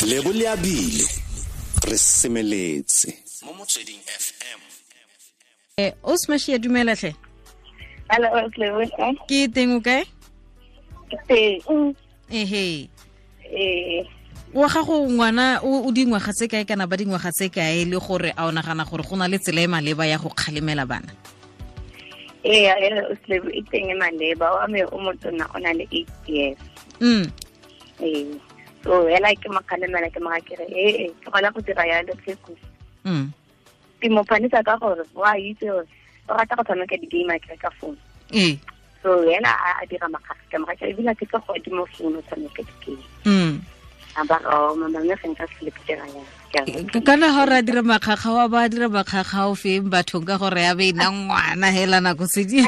Lebo le abile re semeletse mo Motsweding FM. O Smash, dumela tlhe. Hello, Lebo. Ke teng, o kae? Ke teng. Ehe. Wa gago ngwana o dingwaga tse kae kana ba dingwaga tse kae, le gore a o nagana gore go na le tsela e maleba ya go kgalemela bana? Ee, Lebo, e teng e maleba. Wa me o motona o na le 8 years. Ee. So hela ke mo kgalemela, ke mo ga kere ee, ke gona go dira yalo tlheko. Ke mo phanisa ka gore wa itse gore o rata go tshameka di-game a kere ka phone. So yena a dira makgakga, ke mo ga kere ebile ke tlo go adima phone o tshameka di-game. A ba re, oh, mama, mme ga nka se le ke dira yalo. Ke a re, Kana ga re a dira makgakga, wa ba dira makgakga o feng bathong, ka gore ya be e nna ngwana hela nako tse di.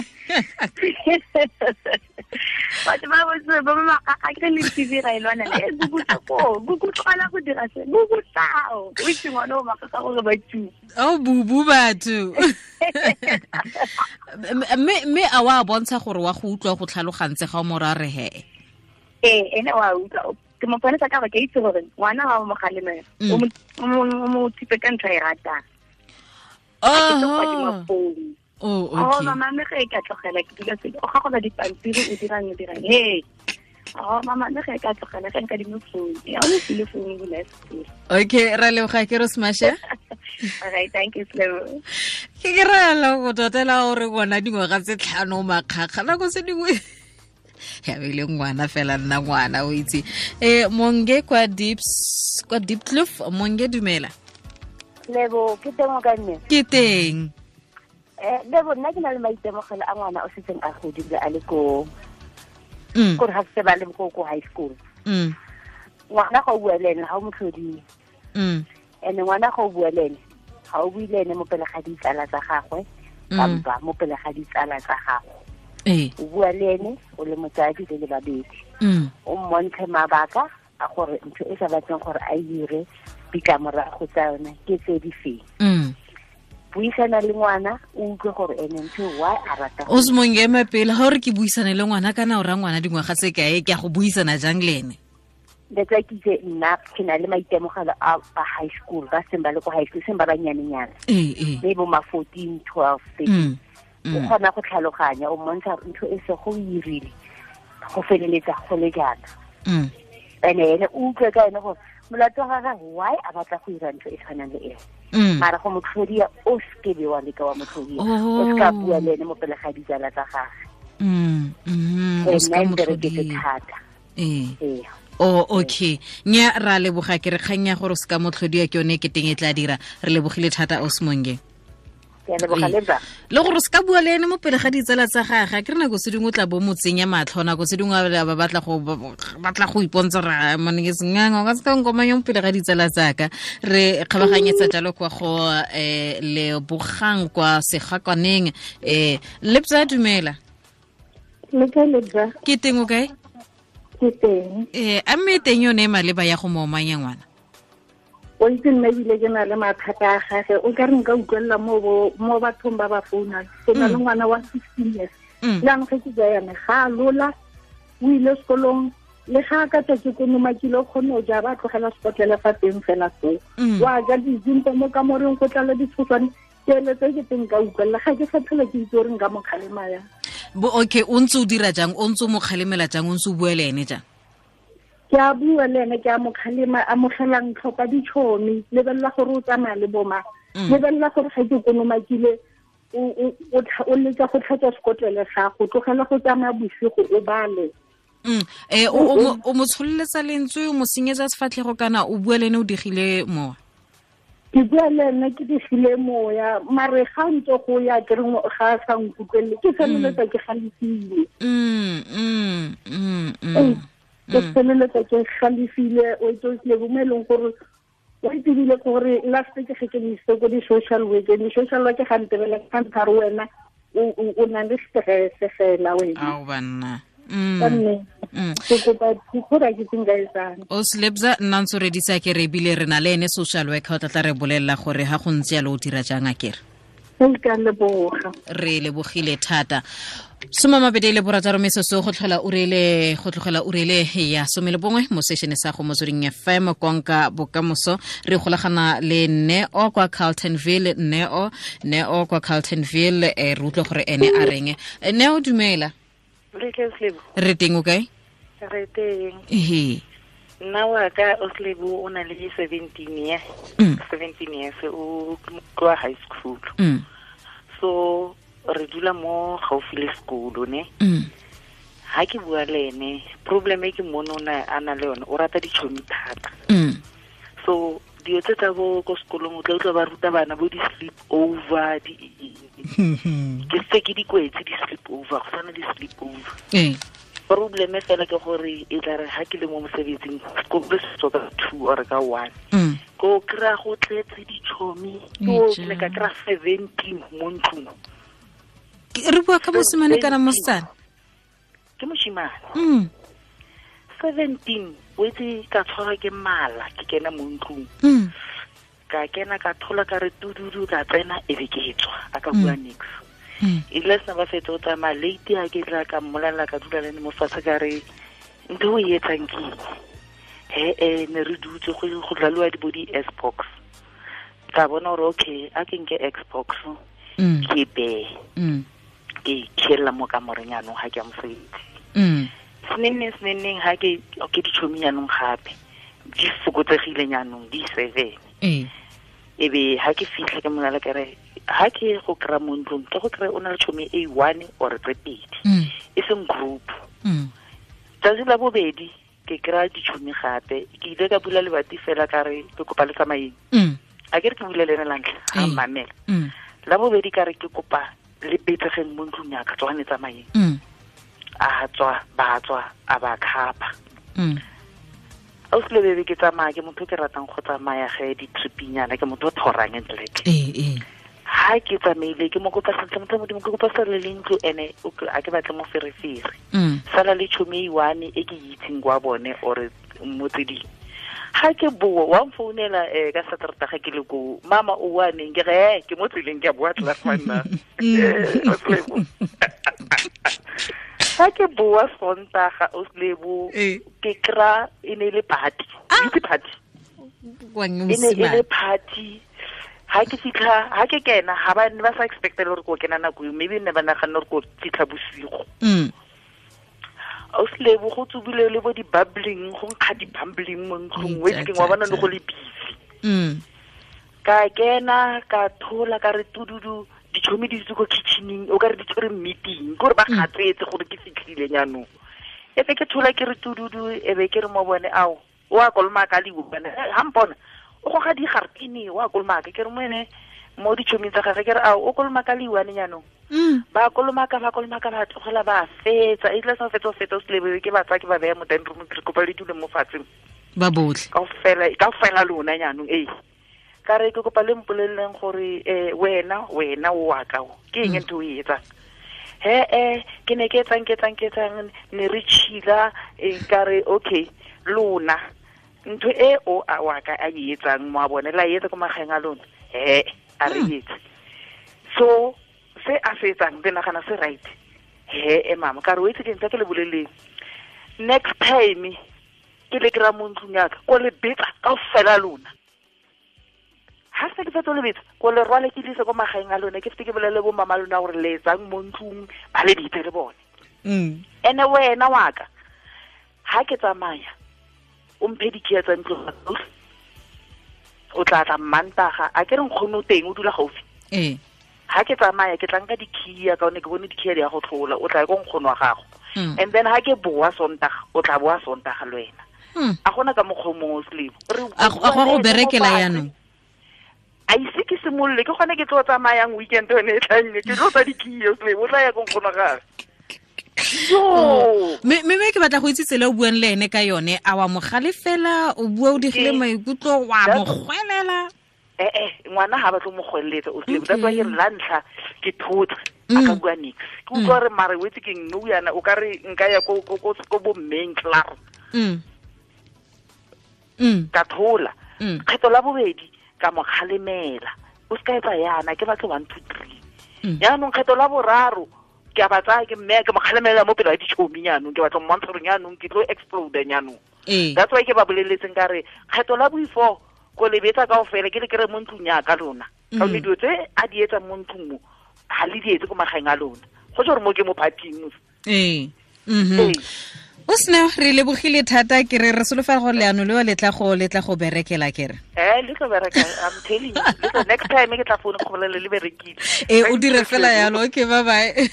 Batho ba botse ba ba makgakga ke le TV ga e lwana le Google ko Google tlogela go dira se Google tao o itse ngwana o makgakga gore ba tšhu. O bubu batho. Mme a wa bontsha gore wa go utlwa go tlhalogantse ga o mo ra re he? Ee, ene wa utlwa. Ke mo ponesa ka gore ke itse gore ngwana wa mo kgalemela, o mo thipe ka ntho e ratang. A ke tlo go adima phone. Oh, Oh, okay. mama, mme ge e ka tlogela ke dula se o gagola dipampiri, o dirang, o dirang. Hey. Oh, mama, mme ge e ka tlogela ge nka dimo phone. Ya, o mo file phone o bula sekolo. Okay, ra leboga ke re Smash. All right, thank you, Lebo. Ke ke ra la go totela gore ngwana dingwaga tse 5 makgakga nako tse dingwe. Ya be le ngwana fela nna ngwana o itse. Monge kwa Deeps, kwa Diepkloof, Monge dumela. Lebo, ke teng o ka nne? Ke teng. Lebo, nna ke na le maitemogelo a ngwana o setseng a godile a le ko kore ga se ba le ko high school. Ngwana ga o bua le ene, ga o mo tlhodile. And ngwana ga o bua le ene, ga o bue le ene mo pele ga ditsala tsa gagwe, kampa mo pele ga ditsala tsa gago. O bua le ene o le motsadi le le babedi. O mmontshe mabaka a gore ntho e sa batleng gore a dire ditlamorago tsa yone ke tse di feng. Buisana le ngwana, o utlwe gore ene ntho why a rata go O se mongwe ema pele, ga o re ke buisane le ngwana, kana o raya ngwana dingwaga tse kae, ke a go buisana jang le ene? That's why ke itse nna ke na le maitemogelo a ba high school, ba seng ba le ko high school, seng ba banyanenyana. Mme bo ma 14, 12, 13. O kgona go tlhaloganya, o mmontsha ntho e se go irile, go feleletsa go le jaana. Ene ene o utlwe ka ene gore molato wa gagwe why a batla go ira ntho e tshwanang le eo. Mara go mo tlhodia, o seke be wa leka wa mo tlhodia. O seka bua le ene mo pele ga ditsala tsa gagwe. O seka Nna e mo mpereketse tlhodia. thata. Oh, okay. Nya ra leboga ke re kgang ya gore o seka mo tlhodia ke yone e keteng e tla dira. Re lebogile thata Osmonge. Ke a leboga le bra. Le gore o seka bua le ene mo pele ga ditsala tsa gagwe, ke re nako tse dingwe o tla bo mo tsenya matlho, nako tse dingwe ba batla go batla go ipontsha gore, ah, mone ke senganga, o ka seka nkomanya mo pele ga ditsala tsaka. Re kgabaganyetsa jalo kwa go Lebogang kwa Segakwaneng. Lebza dumela. Le kae, Lebza? Ke teng, o kae? Ke teng. A mme teng yone e maleba ya go mo omanya ngwana? O itse nna ebile ke na le mathata a gage, o ka re nka utlwelela mo bathong ba ba founang. Ke na le ngwana wa 16 years. Le anong ge ke bua yana, ga a lola, o ile sekolong, le ga a ka tswa ke konomakile, o kgonne go ja, ba tlogela sekotlele fa teng fela foo. Wa ja dizimpo mo kamoreng, go tlala ditshoswane. Ke eletsa ke teng nka utlwelela, ga ke sa tlhole ke itse gore nka mo kgalema yang. Bo, okay, o ntse o dira jang? O ntse o mo kgalemela jang? O ntse o bua le ene jang? Ke a bua le ene, ke a mo kgalema, amogelang tlhopha ditšhomi, lebelela gore o tsamaya le bo mang. Lebelela gore ga ke konomakile, o leka go tlhatswa sekotlele gago, tlogela go tsamaya bosigo o bale. O mo tsholeletsa lentswe, o mo senyetsa sefatlhego kana o bua le ene o digile mowa? Ke bua le ene ke digile moya, mare ga ntse go ya ke re ga a sa nkutlwelele, ke feleletsa ke galefile. Ke feleletsa ke galefile, o itse o tlile bo mo e leng gore o itebile gore last ke ge ke mo isitse ko di-social work, di-social work ga ntebela ga ntha re wena o na le stress fela wena. Ao banna. Ka mme, ke kopa thuso gore ke tseng ka etsang. O Slebza, nna ntse o redisa ke re ebile re na le ene social worker o tla tla re bolelela gore ha go ntse jalo o dira jang a kere? Re lebogile thata. 26 metsotso go tlhola urele go tlogela urele ya 11 mo seshene sa go Motsweding FM konka bokamoso. Re golagana le Neo kwa Carltonville. Neo kwa Carltonville, re utlwe gore ene a reng. Neo, dumela. Re teng, o kae? Re teng. Ehe. Nna wa ka Oslebo o na le 17 years. 17 years o kwa high school. So re dula mo gaufi le sekolo ne. Ha ke bua le ene, problem e ke mmone a na le yone, o rata ditšhomi thata. So dilo tse tsa bo ko sekolong o tla utlwa ba ruta bana bo di-sleep over, ke se ke dikwetse di-sleep over, go tshwana di-sleep over. Problem fela ke gore e tla re ha ke le mo mosebetsing, sekolo se tswa ka 2 or ka 1. Ko kry-a go tletse ditšhomi, ke ne ka kry-a 17 mo ntlong. Re bua ka mosimane kana mosetsana? Ke moshimane. 17 o itse ka tshwarwa ke mala, ke kena mo ntlong. Ka kena ka thola ka re tududu, ka tsena e be ke tswa, a ka bua nix. E ile sena ba fetsa o tsamaya late, ha ke tla ka mmolelela, ka dula le ene mo fatshe ka re ntho o e etsang ke eng? He ne re dutse go dlaliwa di bo di-Xbox. Ka bona gore okay, a ke nke Xbox ke beye. Ke khiela mo kamoreng yanong ha ke ya mosebetsi. Senenneng ha ke ditšhomi yanong gape di fokotsegile yanong di 7. E be ha ke fitlha ke monale ka re ha ke go kry-a mo ntlong, ke go kry-a o na le tšhomi e 1 or tse 2, e seng group. Tsatsi la bobedi ke kry-a ditšhomi gape, ke ile ka bula lebati fela ka re ke kopa le tsamayeng. A ke re ke bule le ene la ntlha, ga mmamela. La bobedi ka re ke kopa le betsegeng mo ntlong ya ka, tswane tsamayeng. A tswa, ba tswa, a ba khapa. Ausi Lebebe, ke tsamaya, ke motho ke ratang go tsamaya ge di-tripinyana, ke motho o thorang ntleke. Ha ke tsamaile, ke mo kopa sentle, motho modimo, ke kopa sala le ntlo ene, a ke batle moferefere. Sala le tšhomi e one e ke itseng kwa bone or mo tse dingwe. Ha ke boa, wa mfounela ka Saterdag ke le ko, mama o wa neng, ke re ke mo tseleng ke a boa tla fa nna. Ha ke boa Sontaga Oslebo, ke kry-a e ne le party. Itse party. E ne e le party. Ha ke fitlha, ha ke kena, ha ba ne ba sa expecte gore ko kena nako eo, maybe ne ba naganne gore ko fitlha bosigo. Oslebo go tsubile le bo di-bubbling, go nkga di-bubbling mo ntlong, o itse wa bona le go le busy. Ka kena, ka thola, ka re tududu, ditšhomi di dutse ko kitchening, o ka re di tshwere meeting, ke gore ba gatsetse gore ke fitlhile jaanong. E be ke thola ke re tududu, e be ke re mo bone, ao, o a kolomaka le bone, ha mpona, o goga digarpene, o a kolomaka, ke re mo ene mo ditšhoming tsa gagwe, ke re ao, o kolomaka le one jaanong. Ba kolomaka, ba tlogela, ba fetsa, e tla sa fetsa, o selebe ke ba tsaya, ke ba beya mo dining room, ke re kopa le dule mo fatshe. Ba botlhe. Kaofela lona jaanong, ee. Ka re ke kopa le mpoleleng gore wena o wa ka o, ke eng ntho o e etsang? He ke ne ke etsang, ne re chila, ka re okay, lona ntho e o a wa ka a e etsang mo a bone, la e etsa ko magaeng a lona, he a re etse. So se a se etsang le nagana se right. He mama, ka re o itse ke ntse ke le boleleng, next time ke le kry-a mo ntlong ya ka, ko le betsa kaofela lona. Ha se ke fetsa le betsa, ko le rwale ke lise ko magaeng a lona, ke fete ke bolele bo mama lona gore le etsang mo ntlong, ba le bitse le bone. Ene wena wa ka, ha ke tsamaya, o mphe dikhia tsa ntlo, o tla tla Mmantaga, a ke re nkgono teng o dula gaufi. Ha ke tsamaya ke tla nka dikhia ka one ke bone dikhia di ya go tlhola, o tla ko nkgono wa gago. And then ha ke boa Sontaga, o tla boa Sontaga le wena. A gona ka mokgwa o mongwe o selebo. A go berekela yanong. A ise ke simolole, ke gone ke tlo tsamayang weekend yone e tlang, ke tlo tsa dikhia, o tla ya ko nkgono wa gagwe. Mme ke batla go itse tsela o buang le ene ka yone, a wa mo galefela, o bua o digile maikutlo, wa mo gwelela? Ngwana ha batlo mo gweletsa, o selebo. That's why ke re la ntlha ke thotse, a ka bua nix. Ke utlwa gore mare o itse ke eng, nou yana o ka re nka ya ko bo mmeng klaar. Ka thola. Kgetho la bobedi ka mo kgalemela. o se ka etsa yana ke batle 1 2 3 yaanong kgetho la boraro ke a ba tsaya ke mme ke mo kgalemela mo pele ga ditšhomi yaanong ke batla mmontsha gore yaanong ke tlo explode yaanong. That's why ke ba boleletseng ka re kgetho la boifo ko lebetsa kaofela ke le kere mo ntlong ya ka lona ka gonne dilo tse a di etsang mo ntlong mo ga le di etse ko magaeng a lona go tse gore mo ke mo parting. O sena re lebogile thata ke re solofela gore leano leo le tla go berekela ke re le tlo bereka, I'm telling you. Next time ke tla founa go bolele le berekile. O dire fela yalo. Okay, bye bye.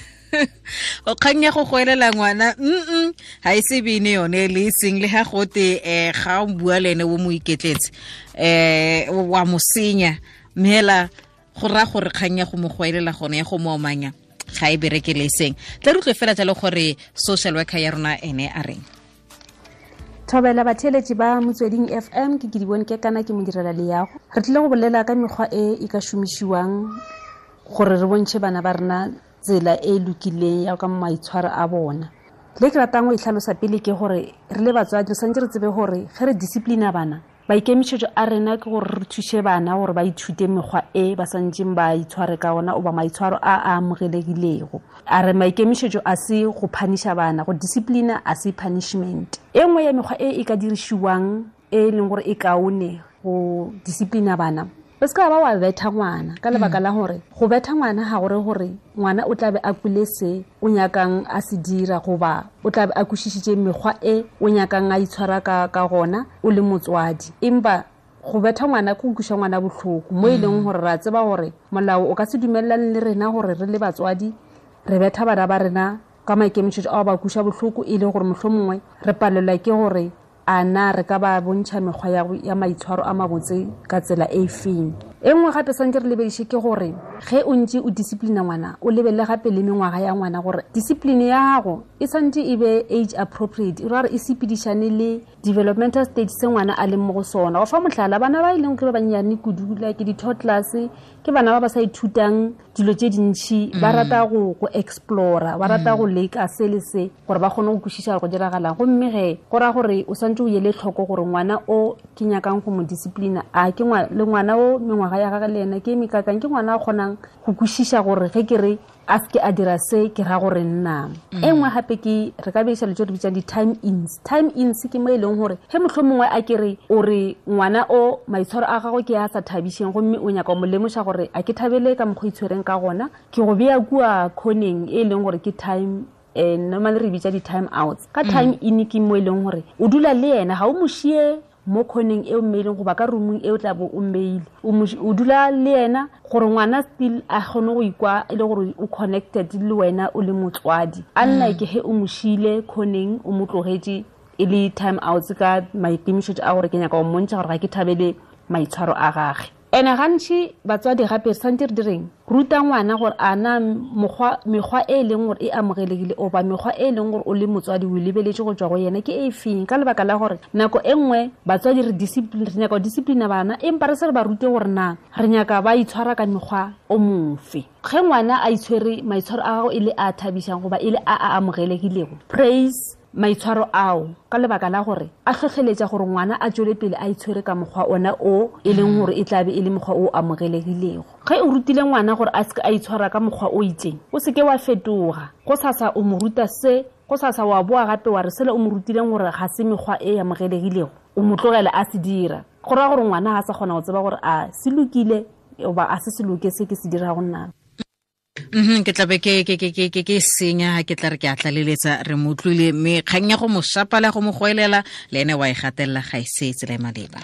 O kgang ya go goelela ngwana ha e se bene yone le seng le ha gote ga o bua le ene o mo iketletse wa mo senya mme go ra gore kgang ya go mo goelela gone ya go mo omanya ga e berekele seng. Tla re utlwe fela jalo gore social worker ya rona ene a reng. Thobela batheletši ba Motsweding FM ke Kedibone ke kana ke modirela leago. Re tlile go bolela ka mekgwa e e ka šomišiwang gore re bontšhe bana ba rena tsela e lokileng ya ka maitshwaro a bona. Le ke ratang go e tlhalosa pele ke gore re le batswadi re santse re tsebe gore ge re disciplina bana, maikemišetšo a rena ke gore re thuše bana gore ba ithute mekgwa e ba santseng ba itshware ka ona oba maitshwaro a a amogelegilego. A re maikemišetšo a se go puniša bana, go disciplina a se punishment. E nngwe ya mekgwa e e ka dirišiwang e leng gore e kaone go disciplina bana, o se ka ba wa betha ngwana ka lebaka la gore go betha ngwana ga gore gore ngwana o tlabe a kwile se o nyakang a se dira goba o tlabe a kwešišitše mekgwa e o nyakang a itshwara ka gona o le motswadi. Empa go betha ngwana ke go kweša ngwana bohloko mo e leng gore ra tseba gore molao o ka se dumelelane le rena gore re le batswadi re betha bana ba rena ka maikemišetšo ao ba kweša bohloko e le gore mohlomongwe re palelwa ke gore a na re ka ba bontšha mekgwa ya maitshwaro a mabotse ka tsela e feng. E nngwe gape santse re lebediše ke gore ge o ntse o disciplina ngwana o lebelele gape le mengwaga ya ngwana gore discipline ya gago e santse e be age appropriate, e ra gore e sepedišane le developmental stage se ngwana a leng mo go sona. Go fa mohlala, bana ba e leng ke ba bannyane kudu like di-toddlers ke bana ba ba sa ithutang dilo tše dintšhi, ba rata go explora, ba rata go leka se le se gore ba kgone go kwešiša go diragalang. Gomme ge go raya gore o santse o ele tlhoko gore ngwana o ke nyakang go mo disciplina a ke le ngwana o mengwaga ya gagwe le ena ke mekakang, ke ngwana a kgonang go kwešiša gore ge ke re a seke a dira se ke ra gore nna. E nngwe gape ke re ka bediša le tse re bitsang di-time ins. Time ins ke mo e leng gore ge mohlomongwe a ke re o re ngwana o maitshwaro a gagwe ke a sa thabišeng gomme o nyaka mo lemoša gore a ke thabele ka mokgwa itshwereng ka gona, ke go bea kua khoneng e leng gore ke time normally re bitša di-time outs. Ka time in ke mo e leng gore o dula le yena ga o mo šie mo khoneng e o mmeileng goba ka roomong e o tla bo o mmeile, o dula le yena gore ngwana still a kgone go ikwa e le gore o connected le wena o le motswadi. Unlike ge o mo šile khoneng o mo tlogetše e le time outs ka maikemišetšo a gore ke nyaka go mmontšha gore ga ke thabele maitshwaro a gage. Ene gantši batswadi gape santse re direng ruta ngwana gore a na mekgwa e leng gore e amogelegile oba mekgwa e leng gore o le motswadi o lebeletše go tswa go yena ke e feng, ka lebaka la gore nako e nngwe batswadi re nyaka go disciplina bana empa re se re ba rute gore na re nyaka ba itshwara ka mekgwa o mofe. Ge ngwana a itshwere maitshwaro a gago e le a thabišang goba e le a a amogelegilego, praise maitshwaro ao ka lebaka la gore a hlohleletša gore ngwana a tswele pele a itshwere ka mokgwa ona o e leng gore e tlabe e le mokgwa o amogelegilego. Ge o rutile ngwana gore a seke a itshwara ka mokgwa o itseng, o seke wa fetoga go sasa o mo ruta se, go sasa wa boa gape wa re sele o mo rutileng gore ga se mekgwa e amogelegilego, o mo tlogela a se dira. Go raya gore ngwana ga sa kgona go tseba gore a se lokile goba a se se loke se ke se dirago nna. Ke tlabe ke senya ke tla re ke a tlaleletsa re mo utlwile mme kgang ya go mo shapa le go mo goelela le ene wa e gatelela ga e se tsela e maleba.